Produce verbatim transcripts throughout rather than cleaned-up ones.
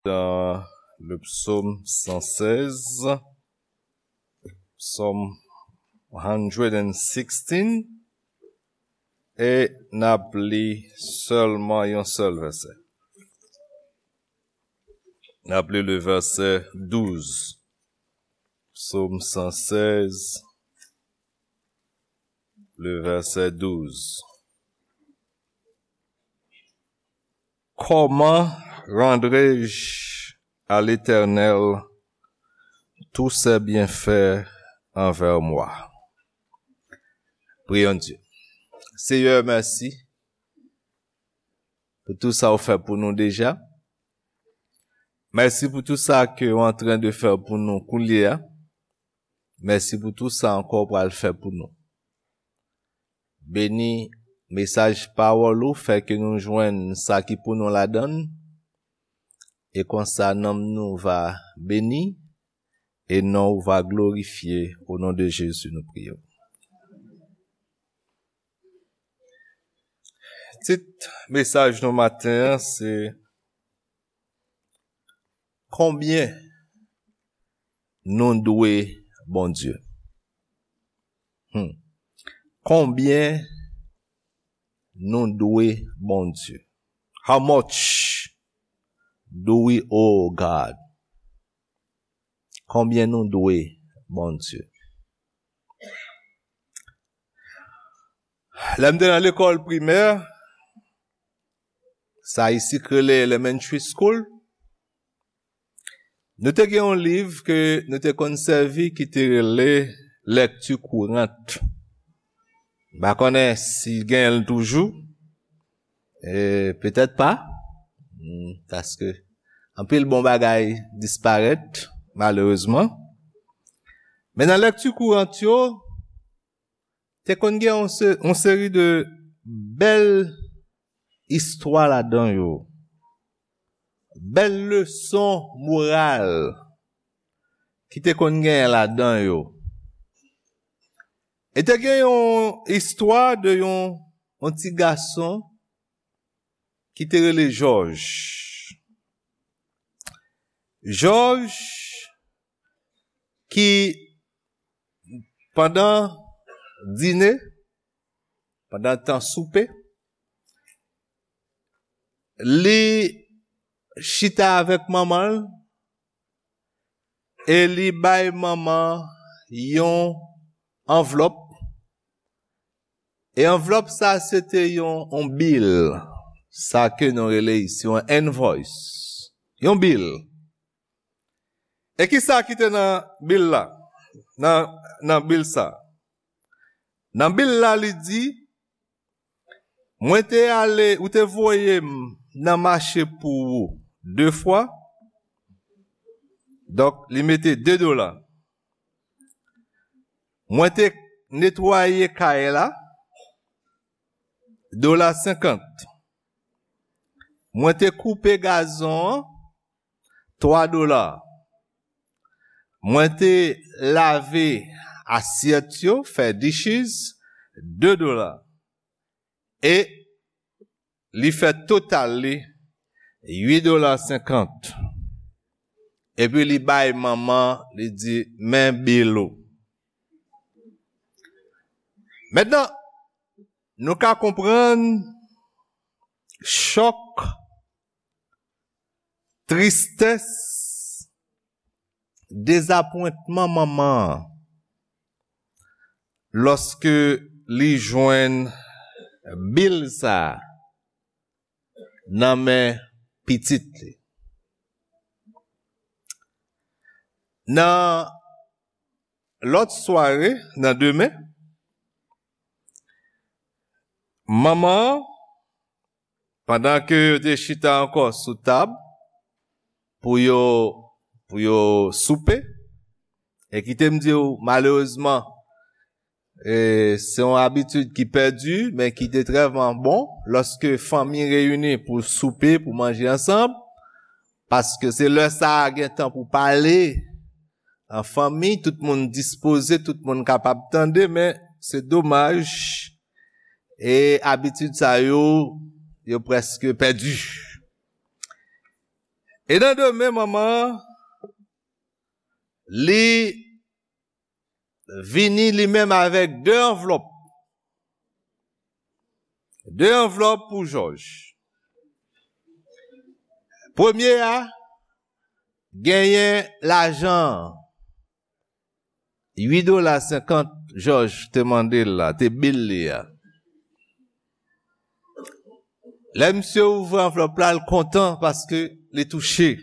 dans le psaume cent seize, psaume one hundred sixteen, e n ap li sèlman yon sèl vèsè. N ap li le vèsè douz. Psaume cent seize, le vèsè douz. Comment rendrai-je à l'Éternel tous ses bienfaits envers moi? Prions Dieu. Seyè, mèsi pou tou sa ou fè pou nou deja. Mèsi pou tou sa ke ou antren de fè pou nou koulye a. Mèsi pou tou sa ankò ou pral fè pou nou. Beni mesaj pawòl ou, fè ke nou jwenn sa ki pou nou ladan l, e konsa nanm nou va beni, e non ou va glorifye. O non de Jezi nou priye. Tit mesaj nou maten an se: Konbyen nou dwe Bondye? Hmm. Konbyen nou dwe Bondye? How much do we owe God? Konbyen nou dwe Bondye? Lè m te nan lekòl primè, sa isi k rele elementary school, nou te gen yon liv ke nou te konn sèvi ki te rele Lecture Courante. M pa konnen si genyen l toujou. E petèt pa. Hmm, paske anpil bon bagay disparèt, malerezman. Men nan Lecture Courante yo, te konn gen yon se-, yon seri de bèl istwa ladan yo. Bèl leson moral ki te konn genyen ladan yo. E te gen yon istwa de yon, yon ti gason ki te rele Jòj. Jòj ki pandan dine, pandan tan soupe, li chita avèk manman l e li bay manman yon anvlòp. E anvlòp sa se te yon, yon bil, sa ke nou rele isi yon invoice, yon bil. E ki sa ki te nan bil la? Nan, nan bil sa. Nan bil la, li di, mwen te ale, ou te voye m nan mache pou ou de fwa. Donk, li mete de dola. Mwen te netwaye kay la, dola senkant. Mwen te koupe gazon an, twa dola. Mwen te lave asyèt yo, fè dishes, de dola. E li fè total li uit dola senkant. Epi li bay manman, li di, men bil ou. Mentnan, nou ka konprann chòk, tristès, dezapwentman manman an lòske li jwenn bil sa a nan men pitit li. Nan lòt sware, nan demen, manman an, pandan ke yo te chita ankò sou tab pou yo, pou yo soupe, e kite m di w, malerezman, e, se yon abitid ki pèdi, men ki te trèman bon, lòske fanmi reyini pou soupe, pou manje ansanm, paske se lè sa a gen tan pou pale an fanmi, tout moun dispoze, tout moun kapab tande, men se domaj, e abitid sa yo, yo prèske pèdi. E nan demen, manman an, li vini li menm avèk de anvlòp. De anvlòp pou Jòj. Premye a, genyen lajan an. Uit dola senkant Jòj te mande l la, te bil li a. Lè misye ouvri anvlòp la, l kontan paske li touche.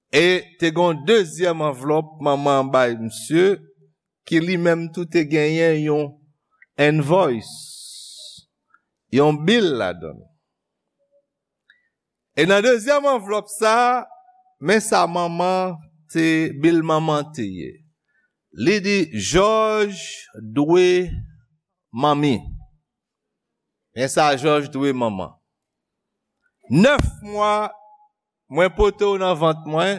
E te gen yon dezyèm anvlòp manman an bay misye, ki li menm tou te genyen yon invoice, yon bil ladan l. E nan dezyèm anvlòp sa, men sa manman te, bil manman te ye. Li di, Jòj dwe manmi. Men sa Jòj dwe manman. Nèf mwa mwen pote w nan vant mwen,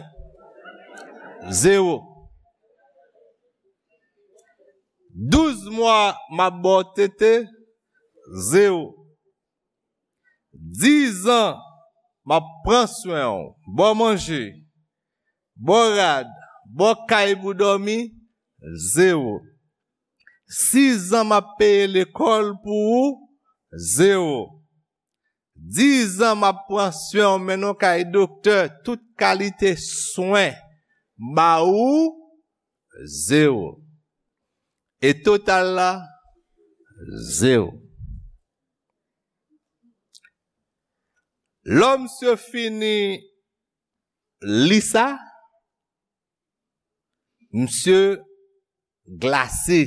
zewo. Douz mwa m ap ba w tete, zewo. Diz an m ap pran swen w, ba w manje, ba w rad, ba w kay pou w dòmi, zewo. Sis an m ap peye lekòl pou ou, zewo. Diz an m ap pran swen w, mennen w kay doktè, tout kalite swen, ba ou, zewo. E total la, zewo. Lè misye fini li sa, misye glase.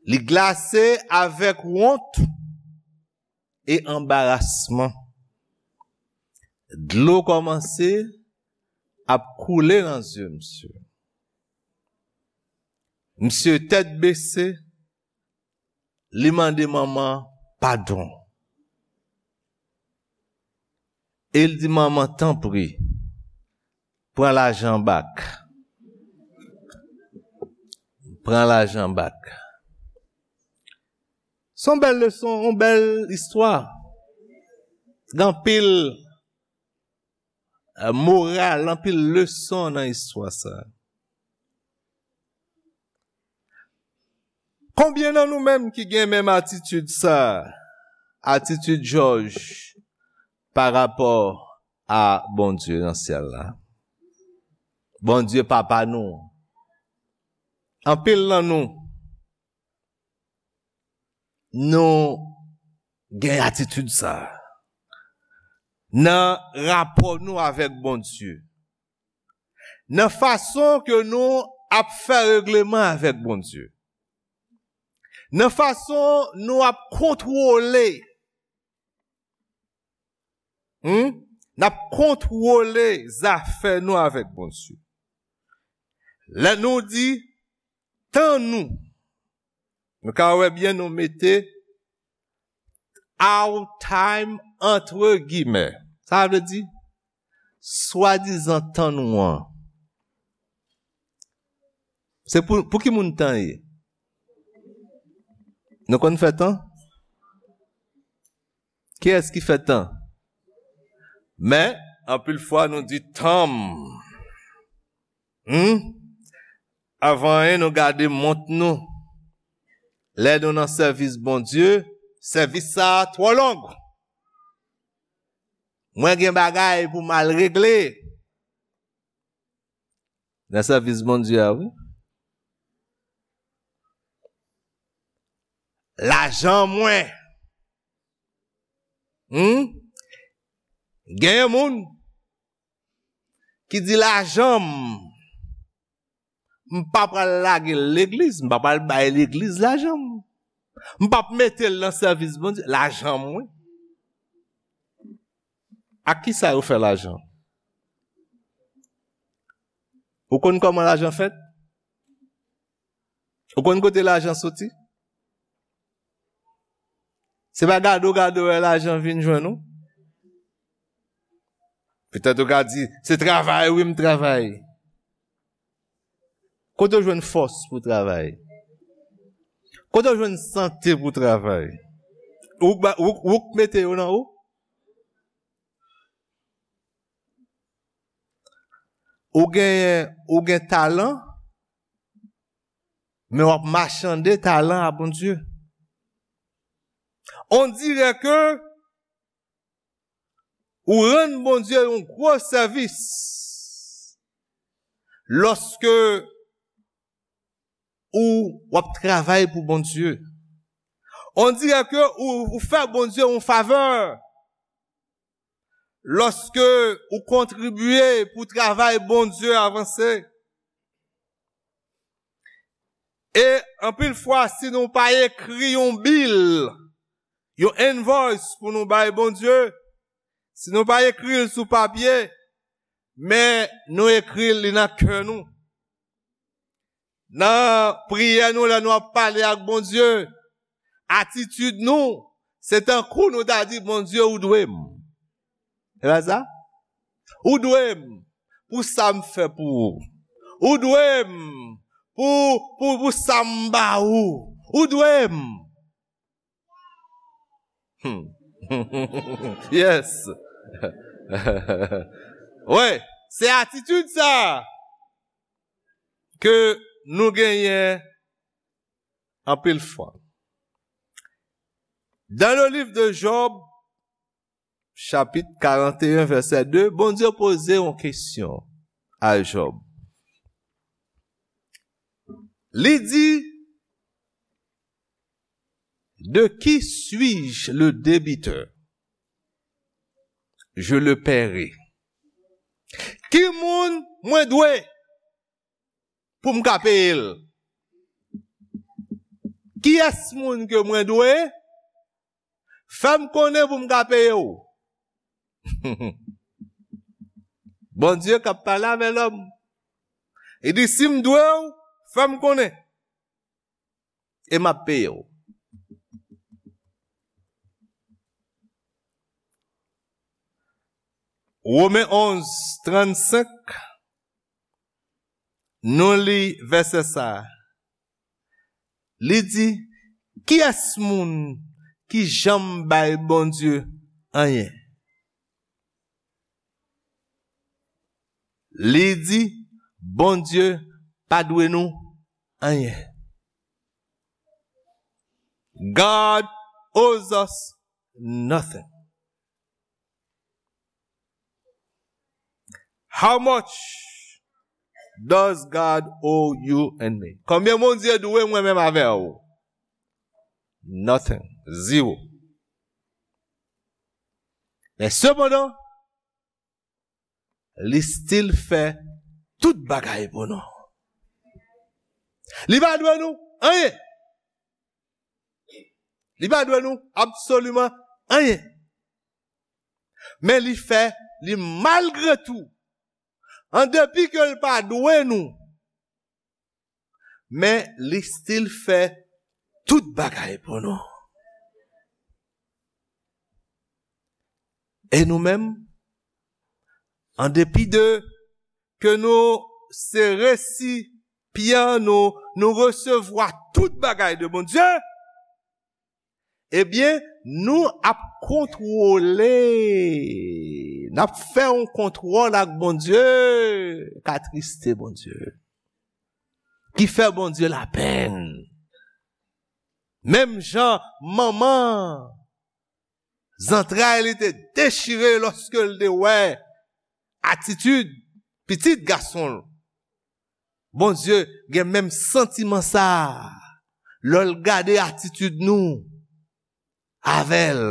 Li glase avèk wont e anbarasman. Dlo kòmanse ap koule nan zye misye. Misye tèt bese, li mande manman padon. E l di, manman, tanpri, pran lajan bak. Pran lajan bak. Se yon bèl leson, yon bèl istwa. Gen anpil, eh, moral, anpil leson nan istwa sa. Konbyen nan nou menm ki gen menm atitid sa, atitid Jòj pa rapò a Bondye nan syèl la? Bondye papa nou. Anpil nan nou, nou gen atitid sa nan rapò nou avèk Bondye. Nan fason ke nou ap fè regleman avèk Bondye. Nan fason nou ap kontwole, hmm? N ap kontwole zafè nou avèk Bondye. Lè nou di, tan nou, nou ka wè byen, nou mete our time antre gimè. Sa vle di, swadizan tan nou an. Se pou, pou ki moun tan ye? Nou konn fè tan? Kiyès ki fè tan? Men, anpil fwa nou di tan m. Hmm? Avan anyen, nou gade mont nou. Lè nou nan sèvis Bondye, sèvis sa a twò long. Mwen gen bagay pou m al regle nan sèvis Bondye a, wi. Lajan mwen. Hmm? Genyen moun ki di, lajan m, m pa pral lage l legliz, m pa pral bay legliz lajan m. M p ap mete l nan sèvis Bondye, lajan m, wi. Ak ki sa yo fè lajan? Ou konn kòman lajan fèt? Ou konn kote lajan soti? Se pa gade w gade w wè lajan vin jwenn ou. Petèt ou ka di, se travay, wi, m travay. Kote w jwenn fòs pou travay? Kote w jwenn sante pou travay? Ou k ba- ou, ou k mete yo nan ou? Ou gen, ou gen talan, men w ap machande talan a Bondye. On dirait que ou rann Bondye yon gwo sèvis lòske ou w ap travay pou Bondye. On dirait que ou, ou fè Bondye yon favè lòske ou kontribye pou travay Bondye avanse. E anpil fwa, si nou pa ekri yon bil, yon invoice pou nou bay Bondye, si nou pa ekri l sou papye, men nou ekri l, li nan kè nou. Nan priyè nou, lè nou ap pale ak Bondye, atitid nou, se tankou nou ta di, "Bondye, ou dwe m." E pa sa? "Ou dwe m pou sa m fè pou ou. Ou dwe m pou, pou, pou sa m ba ou. Ou dwe m." Hmm. Yes. Wi, se atitid sa ke nou genyen anpil fwa. Dans le livre de Job, chapitre quarante et un, verset deux, Bondye poze yon kesyon a Job. Li di, "De qui suis-je le débiteur? Je le paierai." Ki moun mwen dwe pou m ka peye l? Kiyès moun ke mwen dwe? Fè m konnen pou m ka peye w. Bondye k ap pale avè lòm. Li di, "Si m dwe w, fè m konnen. E m ap peye w." Women onz, trannsenk, nou li vèsè sa a. Li di, "Kiyès moun ki janm bay Bondye anyen?" Li di, "Bondye pa dwe nou anyen." God owes us nothing. How much does God owe you and me? Konbyen Bondye dwe mwen menm avè w? Nothing. Zero. Men sepandan, li still fè tout bagay pou nou. Li pa dwe nou anyen. Li pa dwe nou absoliman anyen. Men li fè, li malgre tou, an depi ke l pa dwe nou, men li still fè tout bagay pou nou. E nou menm, an depi de ke nou se resipyan, nou, nou resevwa tout bagay de Bondye, ebyen, nou ap kontwole, n ap fè yon kontwòl ak Bondye k atriste Bondye, ki fè Bondye lapenn. Menm jan manman zantray li te dechire lòske l te wè atitid pitit gason l. Bondye gen menm santiman sa a lè l gade atitid nou avè l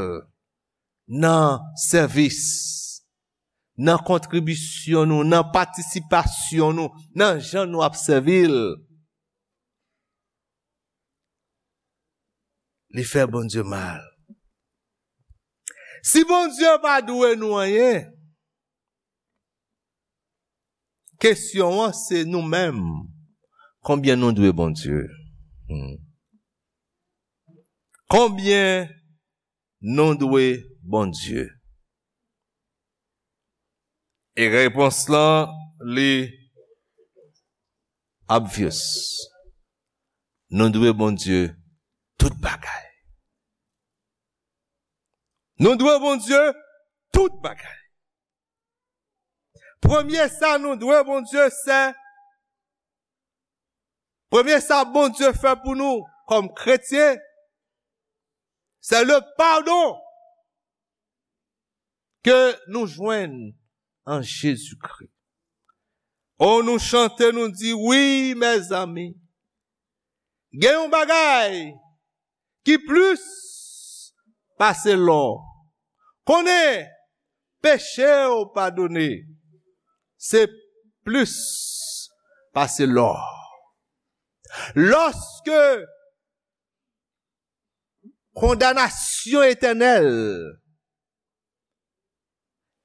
nan sèvis, nan kontribisyon nou, nan patisipasyon nou, nan jan nou ap sèvi l. Li fè Bondye mal. Si Bondye pa dwe nou anyen, kesyon an se nou menm. Konbyen nou dwe Bondye? Hmm. Konbyen nou dwe Bondye? E repons lan, li obvious. Nou dwe Bondye tout bagay. Nou dwe Bondye tout bagay. Premye sa nou dwe Bondye, se, premye sa Bondye fè pou nou kòm kretyen, se le padon ke nou jwenn an Jezikri. O, nou chante, nou di, wi, mezanmi, gen yon bagay ki plis pase lò. Konnen peche w padone, se plis pase lò. Lòske kondanasyon etènèl,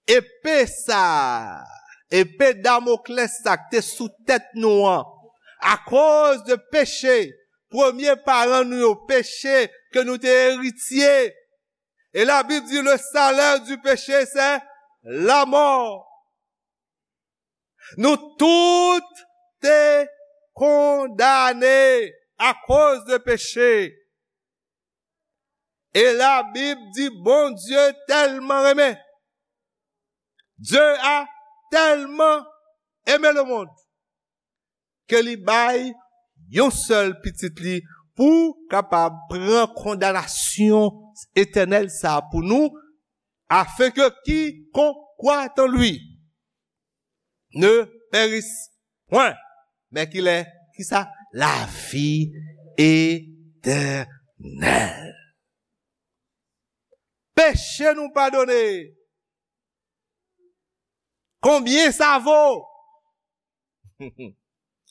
epe sa, epe Damoklès sa k te sou tèt nou an, akoz de peche, premye paran nou yo, peche ke nou te eritye. E Labib di, le salaire du péché, c'est la mort. Nou tout te kondane akoz de peche. E Labib di, Bondye tèlman renmen. Dieu a tèlman aimé le monde ke li bay yon sèl pitit li pou kapab pran kondanasyon etènèl sa a pou nou, afin que quiconque croit en lui ne périsse point, mais qu'il ait, ki sa? La vie éternelle. Peche nou padone. Konbyen sa vo?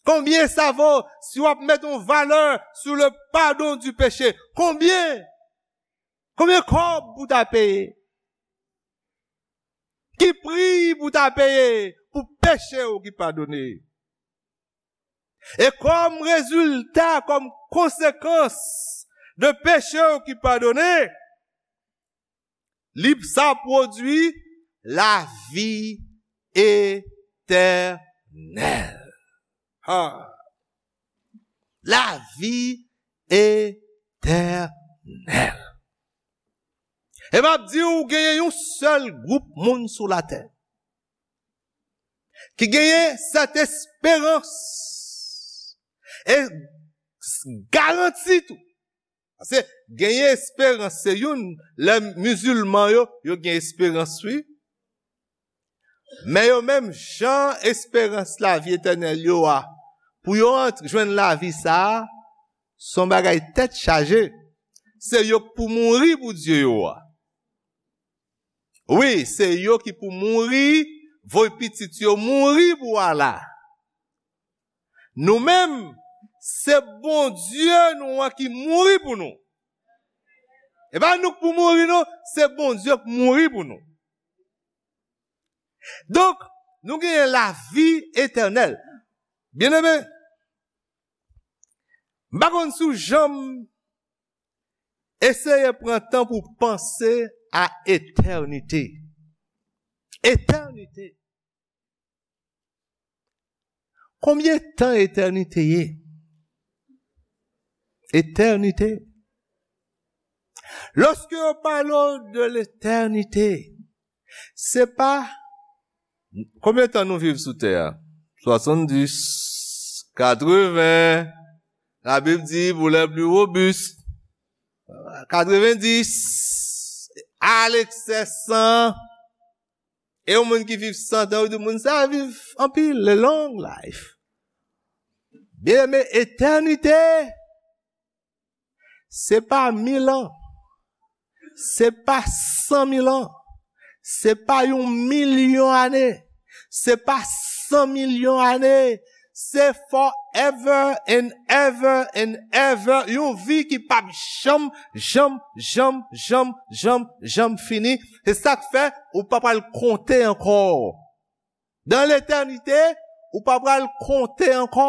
Konbyen sa vo si w ap met yon valè sou le pardon du péché? Konbyen? Konbyen kòb pou ta peye? Ki pri pou ta peye pou peche w ki padone? E kòm rezilta, kòm konsekans de peche w ki padone, li sa pwodui lavi etènèl. Ha. Lavi etènèl. E m ap di w, genyen yon sèl gwoup moun sou latè ki genyen sèt esperans e garanti tou. Paske genyen esperans, se youn, lè mizilman yo, yo gen esperans, wi. Men yo menm, jan esperans lavi etènèl yo a, pou yo ant-, jwenn lavi sa a, se yon bagay tèt chaje. Se yo k pou mouri pou Dye yo a. Wi, se yo ki pou mouri, voye pitit yo mouri pou Allah. Nou menm, se Bondye nou an ki mouri pou nou. E pa nou k pou mouri, non, se Bondye k mouri pou nou. Donk, nou genyen lavi etènèl. Byeneme, m pa konn si w janm eseye pran tan pou w panse a etènite. Etènite. Konbyen tan etènite ye? Etènite. Lòske yo pale w de letènite, se pa konbyen tan nou viv sou tè a? Swasanndis, katreven, Labib di, pour les plus robustes, katrevendis, alekse san. E yon moun ki viv san tan, yo di moun sa a viv anpil, a long life. Byeneme, etènite, se pa mil an, se pa san mil an, se pa yon milyon ane, se pa san milyon ane, se forever and ever and ever, yon vi ki p ap janm, janm, janm, janm, janm, janm fini. Se sa k fè ou pa pral konte ankò. Dan letènite, ou pa pral konte ankò.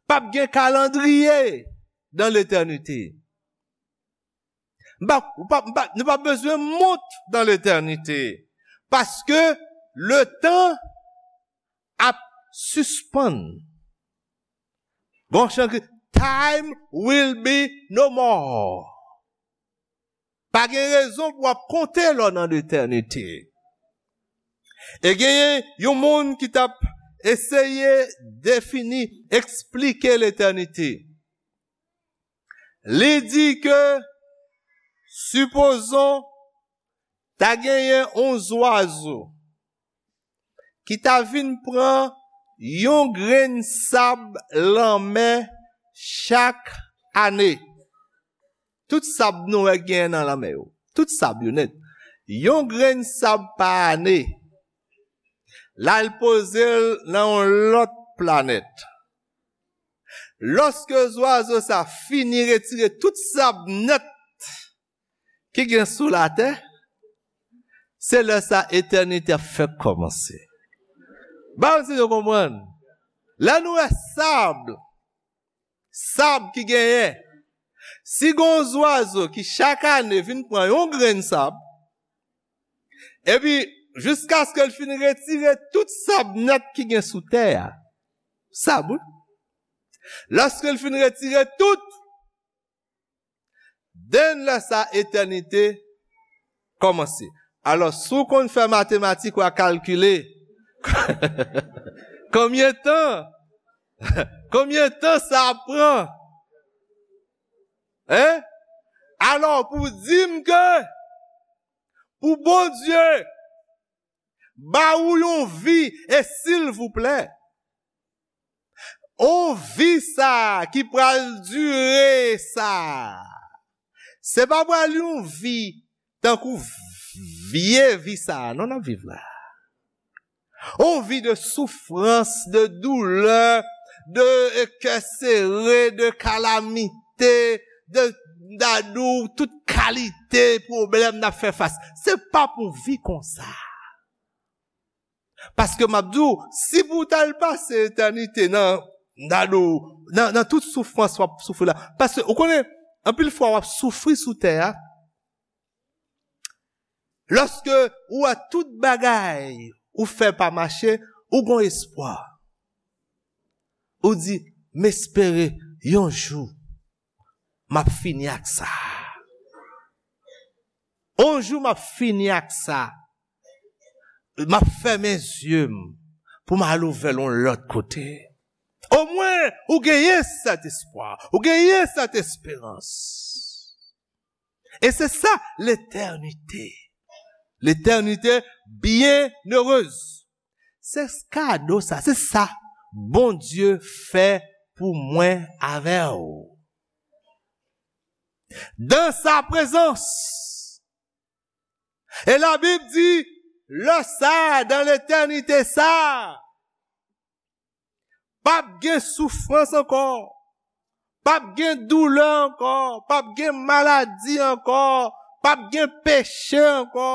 P ap gen kalandriye dan letènite. M pa, ou pa, m pa, nou pa bezwen mont dan letènite. Paske letan ap sispann. Gon chan ki, time will be no more. Pa gen rezon pou w ap konte lè w nan letènite. E genyen yon moun ki t ap eseye defini, eksplike letènite. Li di ke, sipozon, ta genyen yon zwazo ki ta vin pran yon grenn sab lanmè chak ane. Tout sab nou wè gen nan lanmè yo. Tout sab yo nèt. Yon grenn sab pa ane. L al poze l nan yon lòt planèt. Lòske zwazo sa fini retire tout sab nèt ki gen sou latè, se lè sa etènite ap fèk kòmanse. Ba m si nou konprann. Lè nou wè sab, sab ki genyen, si gen yon zwazo ki chak ane vin pran yon grenn sab, epi jiskaske l fin retire tout sab nèt ki gen sou tè a, sab, wi. Lòske l fin retire tout, den lè sa etènite kòmanse. Alò, si w konn fè matematik, w a kalkile konbyen tan, konbyen tan sa ap pran. Hein? Alò, pou di m ke pou Bondye ba ou yon vi, e silvouplè, yon vi sa ki pral dire sa, se pa pral yon vi tankou vye vi sa a non n ap viv la. Yon vi de soufrans, de doulè, de kè sere, de kalamite, de dadou, tout kalite pwoblèm n ap fè fas. Se pa pou vi konsa. Paske m ap di w, si pou w t al pase etènite nan, nan, nan, nan tout soufrans w ap soufri la. Paske, ou konnen, anpil fwa w ap soufri sou tè a, lòske ou wè tout bagay ou fè pa mache, ou gon espwa. Ou di, "M espere yon jou, m ap fini ak sa. Yon jou, m ap fini ak sa." M ap fèmen zye m pou m al ouvè l yon lòt kote. Omwen, ou genyen sèt espwa, ou genyen sèt esperans. E se sa, letènite. Letènite byennerez. Se kado sa, se sa Bondye fè pou mwen avè w. Dans sa présence. E Labib di, lè sa, dan letènite sa, p ap gen soufrans ankò, p ap gen doulè ankò, p ap gen maladi ankò, p ap gen peche ankò,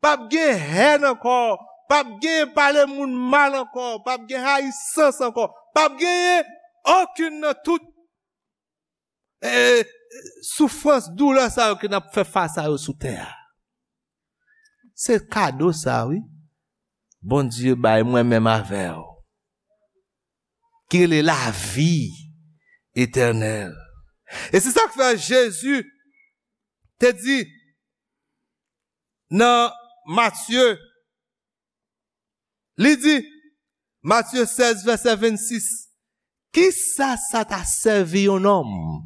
p ap gen hèn ankò, p ap gen pale moun mal ankò, p ap gen rayisans ankò, p ap genyen okenn nan tout eh, soufrans, doulè sa yo ke n ap fè fas a yo sou tè a. Se kado sa, wi. Bondye bay mwen menm avè w. Ki rele lavi etènèl. E se sa k fè Jezi te di nan Matye Li di, Matye sèz, vèsè vennsis, kisa sa ta sèvi yon nonm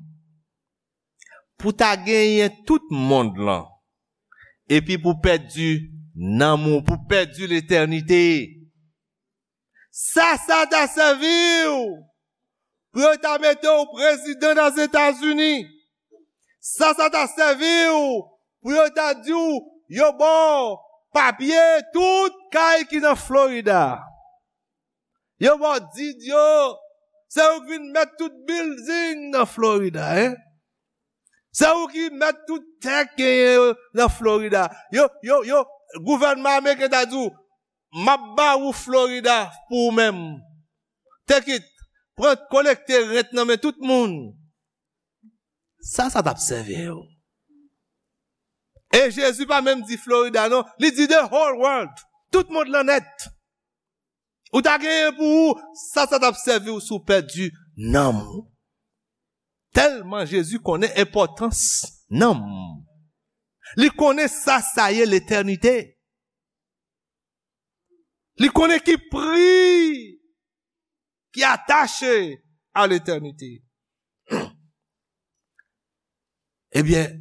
pou ta genyen tout mond lan, epi pou pèdi nanm ou, pou pèdi letènite? Sa sa ta sèvi w pou yo ta mete w prezidan Ozetazini? Sa sa ta sèvi w pou yo ta di w yo ba w papye tout kay ki nan Florida? Yo ba w di yo, se ou ki vin mèt tout bilding nan Florida, en? Se ou ki mèt tout tè k genyen yo nan Florida. Yo, yo, yo, gouvènman ameriken ta di w, m ap ba ou Florida pou ou menm. Take it, pran, kolekte rent nan men tout moun. Sa sa t ap sèvi w? E Jezi pa menm di Florida non, li di the whole world, tout mond lan nèt. Ou ta genyen pou ou, sa sa t ap sèvi w si w pèdi nanm ou? Tèlman Jezi konnen enpòtans nanm. Li konnen sa sa ye letènite. Li konnen ki pri ki atache a letènite. Ebyen,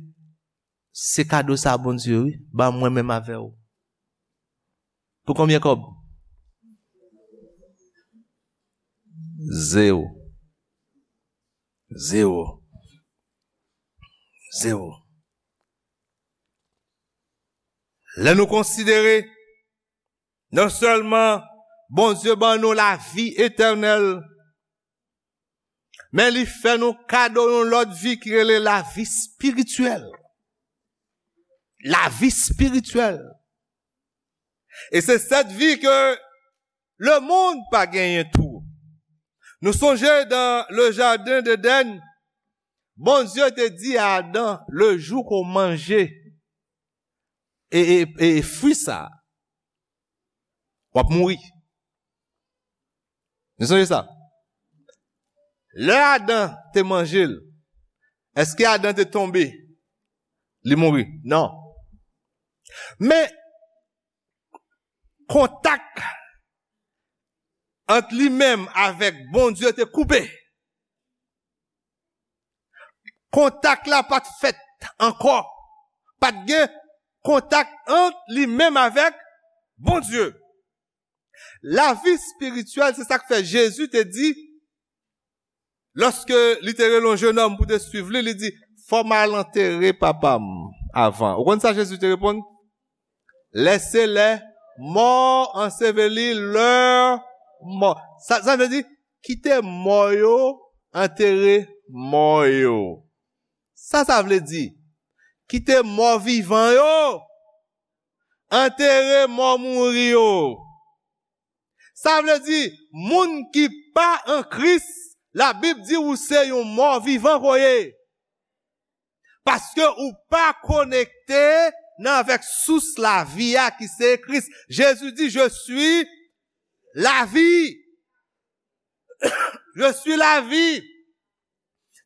se kado sa Bondye, wi, ba mwen menm avè w. Pou konbyen kòb? Zewo. Zewo. Zewo. Lè nou konsidere, non sèlman Bondye ban nou lavi etènèl, men li fè nou kado yon lòt vi ki rele lavi espirityèl. Lavi espirityèl. E se sèt vi ke lemonn pa genyen tou. Nou sonje dan le jaden d'Eden, Bondye te di a Adan, le jou ke w manje e, e, e fwi sa, w ap mouri. Nou sonje sa? Lè Adan te manje l, èske Adan te tonbe? Li mouri? Non. Men, kontak ant li menm avèk Bondye te koupe. Kontak la pa t fèt ankò. Pa t gen kontak ant li menm avèk Bondye. Lavi espirityèl, se sa k fè Jezi te di, lòske li te rele yon jenòm pou te swiv li, li di, fò m al antere papa m avan. Ou konn sa Jezi te reponn? Laissez les morts ensevelir leurs morts. Sa, sa vle di, kite mò yo antere mò yo. Sa, sa vle di, kite mò vivan yo antere mò mouri yo. Sa vle di, moun ki pa an Kris, Labib di ou se yon mò vivan ke w ye. Paske ou pa konekte nan avèk sous lavi a ki se Kris. Jezi di, je suis la vie. Je suis la vie.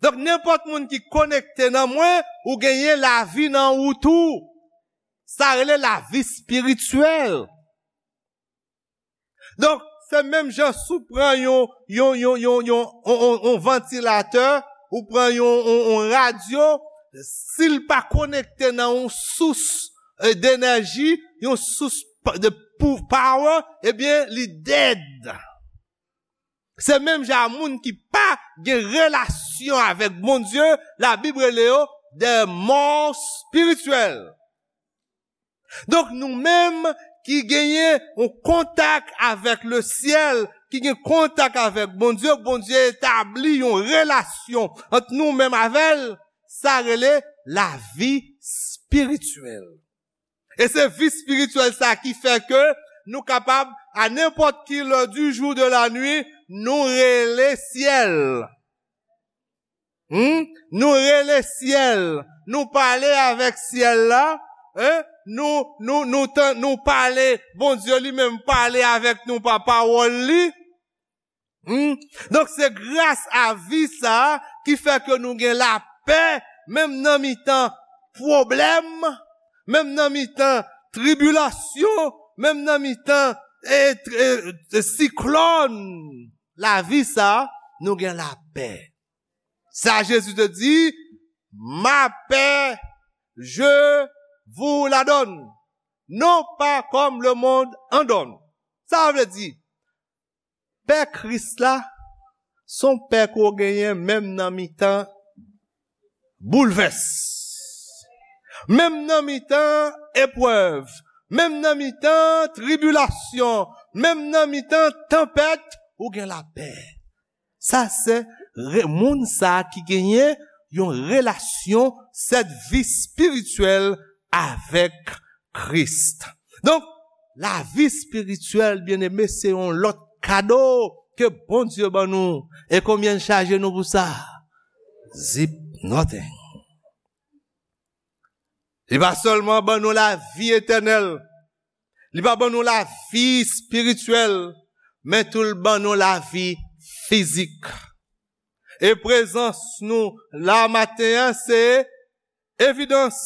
Donk, nenpòt moun ki konekte nan mwen, ou genyen lavi nan ou tou. Sa rele lavi espirityèl. Donk, se menm jan si w pran yon, yon, yon, yon, yon, yon, yon, yon vantilatè, ou pran yon, yon, yon radyo, si l pa konekte nan yon sous, eh, denèji, yon sous pa, de pou, power, ebyen, li dead. Se menm jan a moun ki pa gen relasyon avèk Bondye, Labib rele yo des morts spirituels. Donk, nou menm ki genyen yon kontak avèk lesyèl, ki gen kontak avèk Bondye, Bondye etabli yon relasyon ant nou menm avè l, sa rele lavi espirityèl. E se vi espirityèl sa ki fè ke nou kapab, a nenpòt ki lè du jou, de la nuit, nou rele syèl. Hmm? Nou rele syèl. Nou pale avèk syèl la. Hein? Nou, nou, nou, tan, nou pale, Bondye li menm pale avèk nou pa pawòl li. Hmm? Donk, se gras a vi sa a ki fè ke nou gen lapè, menm nan mitan pwoblèm, menm nan mitan tribilasyon, menm nan mitan, e, e, e, siklòn. Lavi sa a, nou gen lapè. Sa Jezi te di, ma paix, je vous la donne, non pas comme le monde en donne. Sa vle di, pè Kris la, se yon pè ke w genyen menm nan mitan boulvès, menm nan mitan eprèv, menm nan mitan tribilasyon, menm nan mitan tanpèt, ou gen lapè. Sa se re-, moun sa a ki genyen yon relasyon, sèt vi espirityèl avèk Kris. Donk, lavi espirityèl, byeneme, se yon lòt kado ke Bondye ban nou. E konbyen l chaje nou pou sa? Zip nothing. Li pa sèlman ban nou lavi etènèl, li pa ban nou lavi espirityèl, men tou l ban nou lavi fizik. E prezans nou la maten an, se evidans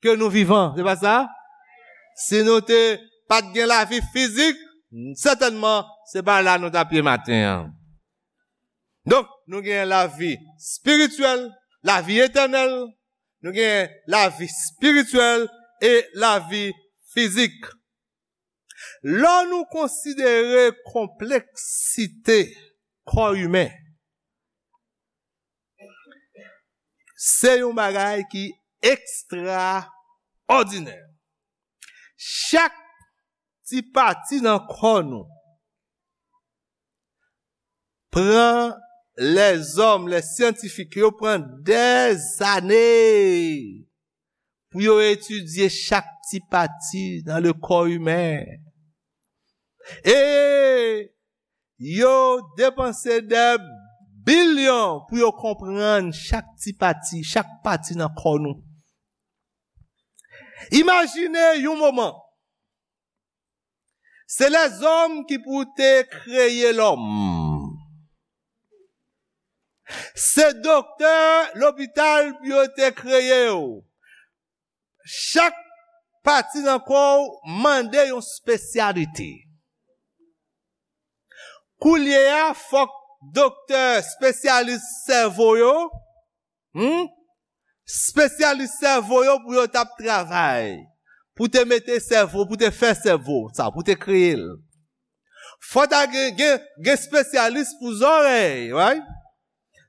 ke nou vivan, se pa sa? Si nou te pa t gen lavi fizik, sètènman, se pa la nou t ap ye maten an. Donk, nou gen lavi espirityèl, lavi etènèl, nou gen lavi espirityèl e lavi fizik. Lè nou konsidere konpleksite kò imen, se yon bagay ki ekstraòdinè. Chak ti pati nan kò nou pran lèzòm, lè syantifik yo pran dèzane pou yo etidye chak ti pati nan le kò imen. E yo depanse dè bilyon pou yo konprann chak ti pati, chak pati nan kò nou. Imajine yon moman, se lèzòm ki pou te kreye lòm. Se doktè lopital pou yo te kreye w. Chak pati nan kò w mande yon espesyalite. Koulye a, fòk doktè espesyalis sèvo yo, hmm? Espesyalis sèvo yo pou yo t ap travay, pou te mete sèvo, pou te fè sèvo sa, pou te kreye l. Fò ta gen, gen, gen espesyalis pou zòrèy, right?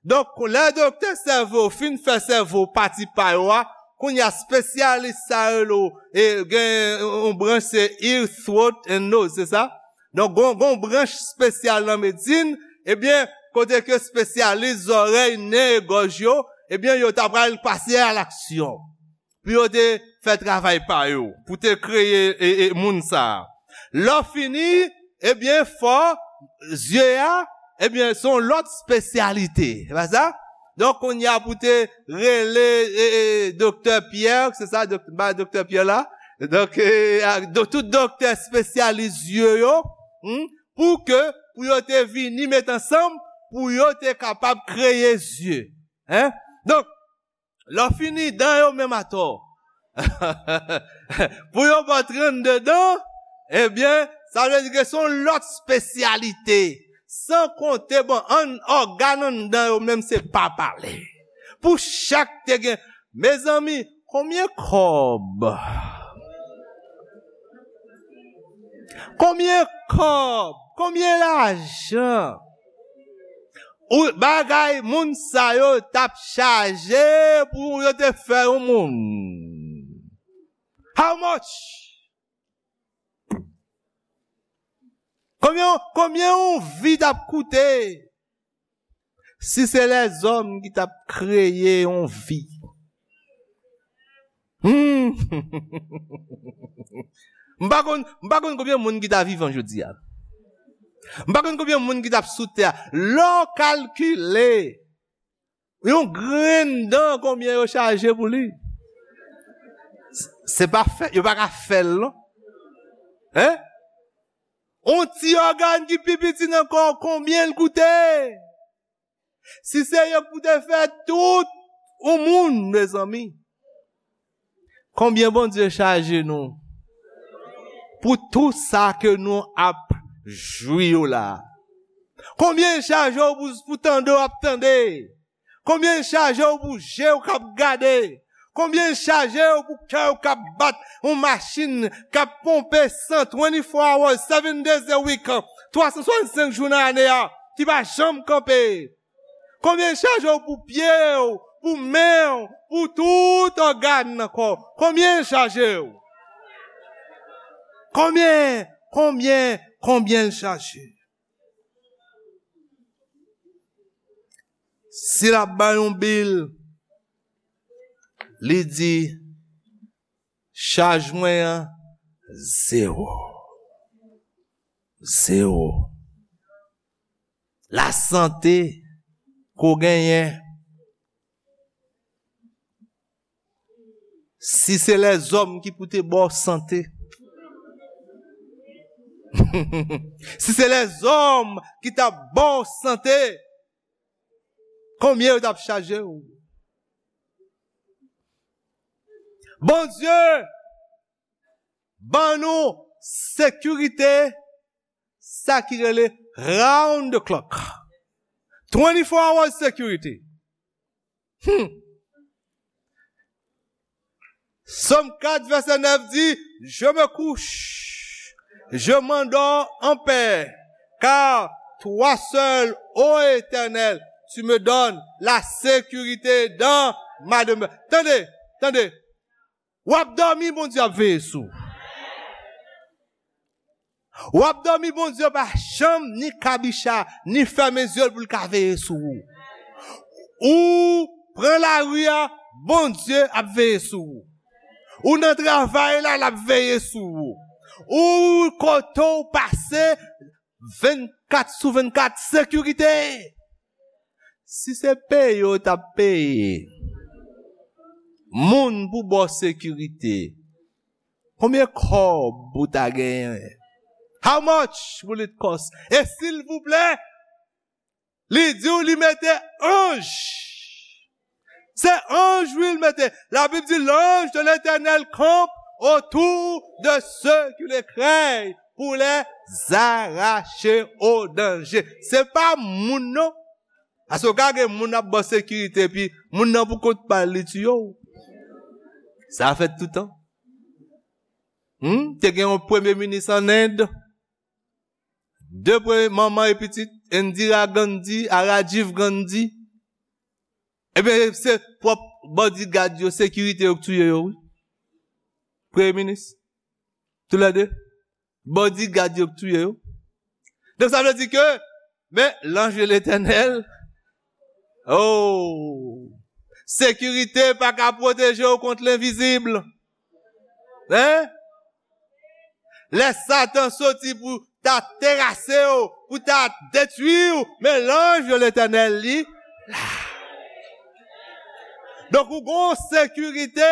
Donk, lè doktè sèvo fin fè sèvo pati pa yo a, kounye a espesyalis sa yo rele, e, gen yon branch se ear, throat and nose, se sa? Donk, gon, gon branch espesyal nan medsin, ebyen, kote ke espesyalis zòrèy, nen e gòj yo, ebyen, yo ta pral pase a laksyon pou yo te fè travay pa yo, pou te kreye e, e, moun sa a. Lè w fini, ebyen, fò zye a, ebyen, se yon lòt espesyalite. Se pa sa? Donk, kounye a pou te rele e, e, doktè Pyè, se sa, dok, ba doktè Pyè la? Donk, e, a, do, tout doktè espesyalis zye yo, hmm, pou ke, pou yo te vini met ansanm, pou yo te kapab kreye zye. Hein? Donk, lè w fini, dan yo menm atò. Pou yo ba w trannde dan, ebyen, sa vle di ke se yon lòt espesyalite. San konte, bon, an, ògàn anndan yo menm se pa pale. Pou chak te gen, mezanmi, konbyen kòb? Konbyen kòb? Konbyen lajan? Ou, bagay moun sa yo t ap chaje pou yo te fè yon moun. How much? Konbyen, konbyen yon vi t ap koute? Si se lèzòm ki t ap kreye yon vi. Hmm. M pa konn, m pa konn konbyen moun ki ta vivan jodi a. M pa konn konbyen moun ki t ap sou tè a. Lè w kalkile, yon grenn dan, konbyen yo chaje pou li? Se pa fè, yo pa ka fè l, non. Hein? On ti ògàn ki pi piti nan kò w, konbyen l koute? Si se yo k pou te fè tout yon moun, mezanmi, konbyen Bondye chaje nou pou tou sa ke nou ap jwi yo la? Konbyen l chaje w pou, pou tande w ap tande? Konbyen l chaje w pou je w k ap gade? Konbyen l chaje w pou kè w k ap bat, yon machin k ap ponpe san, twenty-four hours, seven days a week, twa san swasannsenk jou nan ane a, ki pa janm kanpe? Konbyen l chaje w pou pye w, pou men w, pou tout ògàn nan kò w? Konbyen l chaje w? Konbyen, konbyen, konbyen l chaje? Si l ap bay yon bil, li di, chaj mwen an, zewo. Zewo. Lasante ke w genyen, si se lèzòm ki pou te ba w sante, si se lèzòm ki t ap ba w sante, konbyen yo t ap chaje w? Bondye ban nou sekirite, sa ki rele round the clock. Twenty-four hours security. Hmm. Sòm kat vèsè nèf di, je me couche, je m'endors en paix, car toi seul, ô Éternel, tu me donnes la sécurité dans ma demeure. Tande, tande. W ap dòmi, Bondye ap veye sou ou. W ap dòmi, Bondye pa janm ni kabicha, ni fèmen zye l pou l ka veye sou ou. Ou pran lari a, Bondye ap veye sou ou. Ou nan travay la, l ap veye sou ou. Ou kote w pase, vennkat sou vennkat, sekirite. Si se peye w t ap peye moun pou ba w sekirite, konbyen kòb ou ta genyen? How much will it cost? E silvouplè, li di w li mete anj. Se anj, wi, l mete. La Bible dit, l'ange de l'Éternel campe autour de ceux qui le craignent pour les arracher au danger. Se pa moun, non. Paske w ka gen moun ap ba w sekirite, epi moun nan pou kont pa l, li tiye w. Sa fèt toutan. Hmm? Te gen yon premye minis an End. De premye manman e pitit, Indira Gandhi a Rajiv Gandhi. Ebyen, se pwòp bodyguard yo, sekirite yo k touye yo, wi. Premye minis. Toulède. Bodyguard yo k touye yo. Donk, sa vle di ke, men, l'ange de l'Éternel, oh, sekirite pa ka pwoteje w kont lenvizib. Hein? Lè Satan soti pou ta terase w, pou ta detwi w, men l'ange de l'Éternel li la. Donk, ou gon sekirite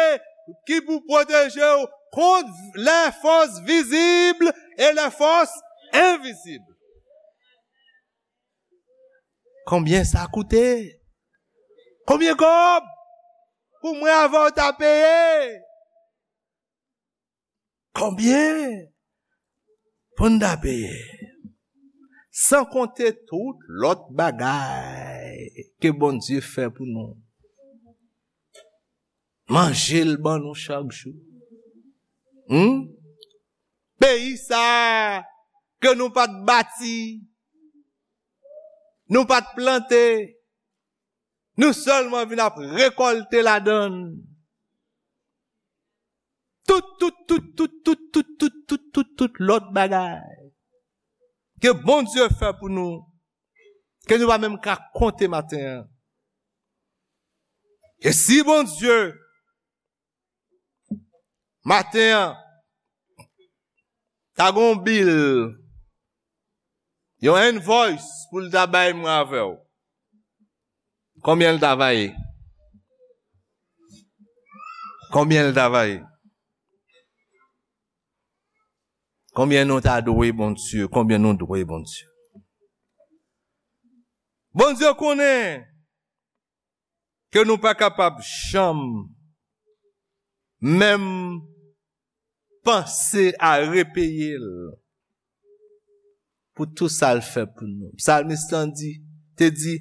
ki pou pwoteje w kont les forces visibles et les forces invisibles. Konbyen sa koute? Konbyen kòb pou mwen avè w ta peye? Konbyen pou n ta peye? San konte tout lòt bagay ke Bondye fè pou nou. Manje l ban nou chak jou. Hmm? Peyi sa a ke nou pa t bati, nou pa t plante, nou sèlman vin ap rekòlte ladan l. Tout, tout, tout, tout lòt bagay ke Bondye fè pou nou, ke nou pa menm ka konte maten an. E si Bondye, maten an, ta gon bil, yon invoice pou l ta bay mwen avè w, konbyen l ta va ye? Konbyen l ta va ye? Konbyen nou ta dwe Bondye? Konbyen nou dwe Bondye? Bondye konnen ke nou pa kapab janm menm panse a repeye l pou tou sa l fè pou nou. Psalmiste lan di, te di,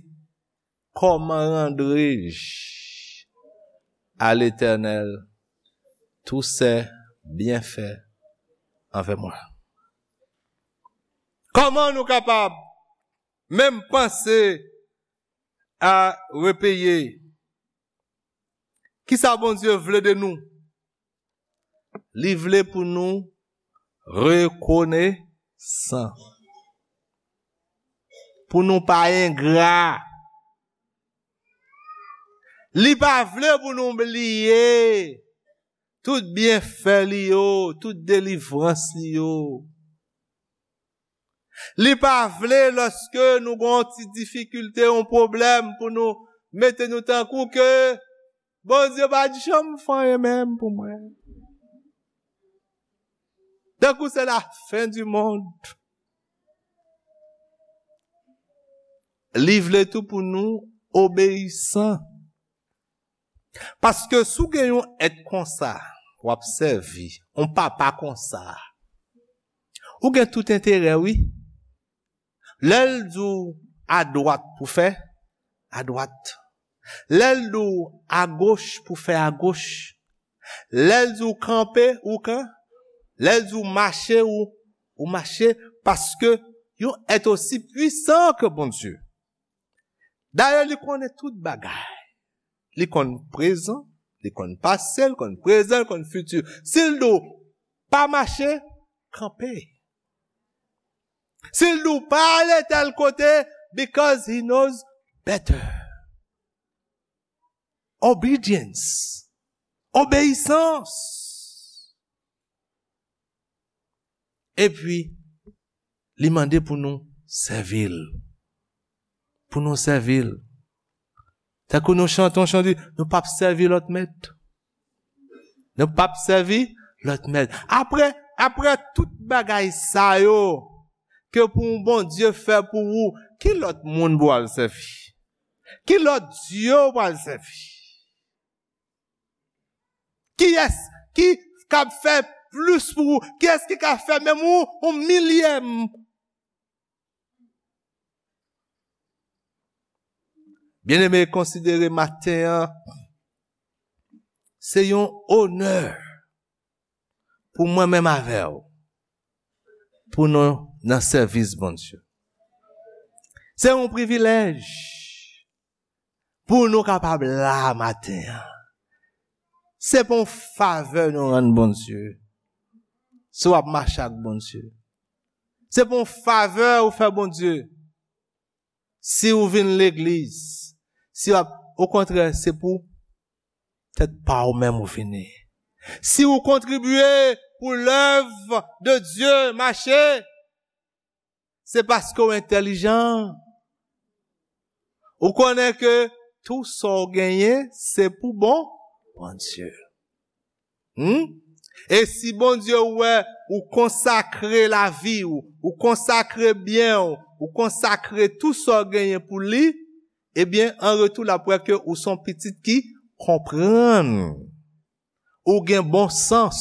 comment rendrai-je à l'Éternel tous ses bienfaits envers moi? Kòman nou kapab menm panse a repeye? Kisa Bondye vle de nou? Li vle pou nou rekonesan. Pou nou pa engra. Li pa vle pou nou bliye tout byenfè li yo, tout delivrans li yo. Li pa vle lòske nou gon ti difikilte, yon pwoblèm pou nou mete nou tankou ke Bondye pa janm fè anyen menm pou mwen. Tankou se la fen di monn. Li vle tou pou nou obeyisan. Paske si w gen yon èt konsa, w ap sèvi yon papa konsa, ou gen tout enterè, wi. Lè l di w adwat pou fè, adwat. Lè l di w agoch pou fè agoch. Lè l di w kanpe, ou kan. Lè l di w mache, ou, ou mache. Paske yon èt osi pwisan ke Bondye. Dayè, li konnen tout bagay. Li konn prezan, li konn pase, li konn prezan, li konn fiti. Si l di w pa mache, kanpe. Si l di w pa ale tèl kote, because he knows better. Obedience. Obeyisans. Epi, li mande pou nou sèvi l. Pou nou sèvi l. Tankou nou chante yon chan, di, nou p ap sèvi lòt mèt. Nou p ap sèvi lòt mèt. Apre, apre tout bagay sa yo, ke pou yon Bondye fè pou ou, ki lòt moun pou w al sèvi? Ki lòt dye w pral sèvi? Kiyès ki kab fè plis pou ou? Kiyès ki ka fè menm ou, yon milyèm? Byeneme, konsidere maten an, se yon onè pou mwen menm avè w, pou nou nan sèvis Bondye. Se yon privilèj pou nou kapab la maten an. Se pa yon favè nou rann Bondye si w ap mache ak Bondye. Se pa yon favè ou fè Bondye si ou vin legliz. Si w ap, okontrè, se pou tèt pa ou menm ou vini. Si ou kontribye pou lèv de Dye mache, se paske w entèlijan. Ou konnen ke tou sa w genyen, se pou bon Bondye. Hmm? E si Bondye wè ou konsakre lavi w, ou konsakre byen w, ou konsakre tou sa w genyen pou li, ebyen, an retou, l ap wè ke ou se yon pitit ki konprann. Ou gen bon sans.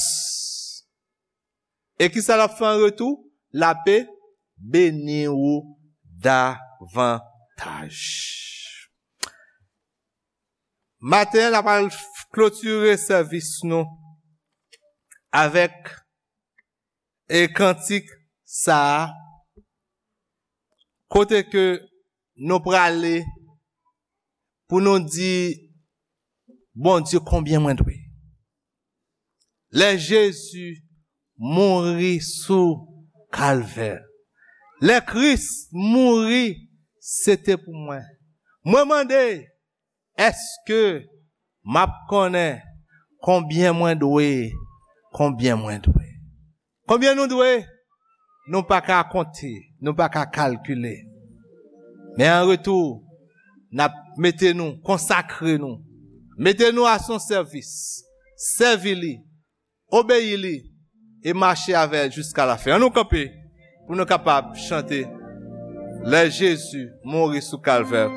E kisa l ap fè an retou? L ape beni ou davantaj. Maten an, n ap al klotire sèvis nou avèk e kantik sa a, kote ke nou prale pou nou di Bondye konbyen mwen dwe. Lè Jezi mouri sou Kalvè, lè Kris mouri, se te pou mwen. Mwen mande, èske m ap konnen konbyen mwen dwe, konbyen mwen dwe? Konbyen nou dwe? Nou pa ka konte, nou pa ka kalkile. Men an retou, n ap mete nou, konsakre nou, mete nou a son sèvis, sèvi li, obeyi li, e mache avè l jiska lafen. Ann nou kanpe pou nou kapab chante Lè Jezi mouri sou Kalvè.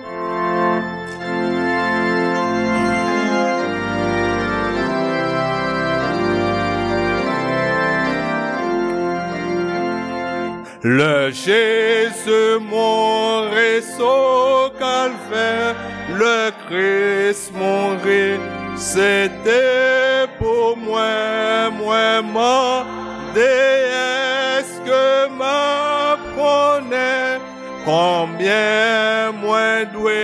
Lè Jezi mouri sou Kalvè, lè Kris mouri, se te pou mwen. Mwen mande, èske m ap konnen konbyen mwen dwe,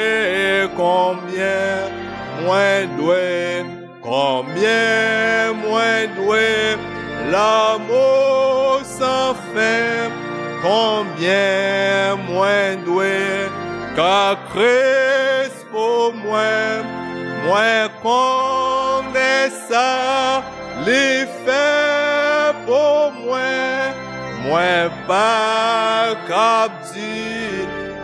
konbyen mwen dwe, konbyen mwen dwe lanmou san fen, konbyen mwen dwe ka Kris pou mwen. Mwen konnen sa li fè pou mwen. Mwen pa kab di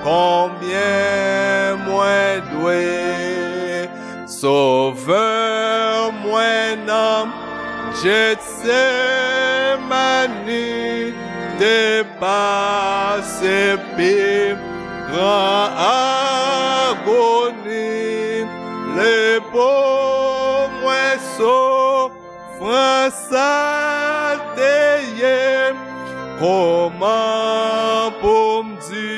konbyen mwen dwe. Sovè mwen nan Jetsemani te pase pi gran agoni. Li pou mwen soufrans Kòman pou m di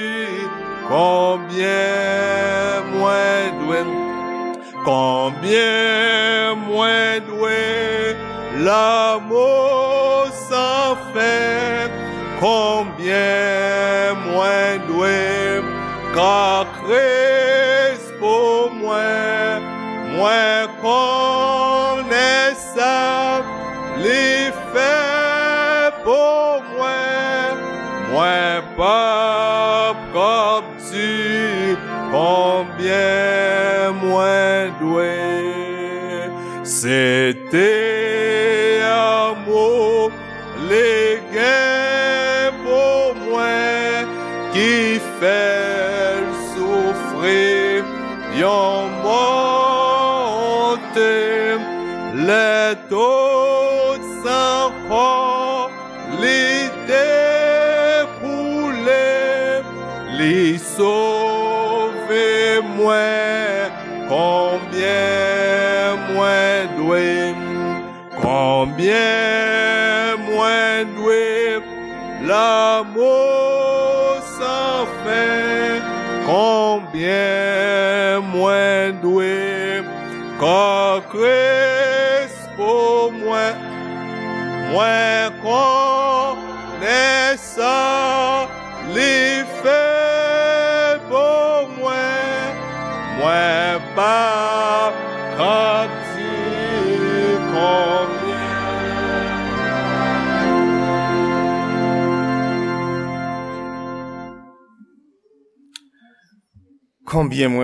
konbyen mwen dwe, konbyen mwen dwe lanmou san fen, konbyen mwen dwe ka Kris pou mwen, mwen konnen sa li fè pou mwen, mwen p ap kab di konbyen mwen dwe. Se te lanmou li gen pou mwen ki fè l soufri yon mò onte. Lè tout san kò li te koule, li sove mwen. Konbyen mwen dwe, konbyen mwen dwe lanmou san fen, konbyen mwen dwe kò Kris pou mwen, mwen konnen sa li fè pou mwen, mwen pa ka di konbyen. Konbyen mwen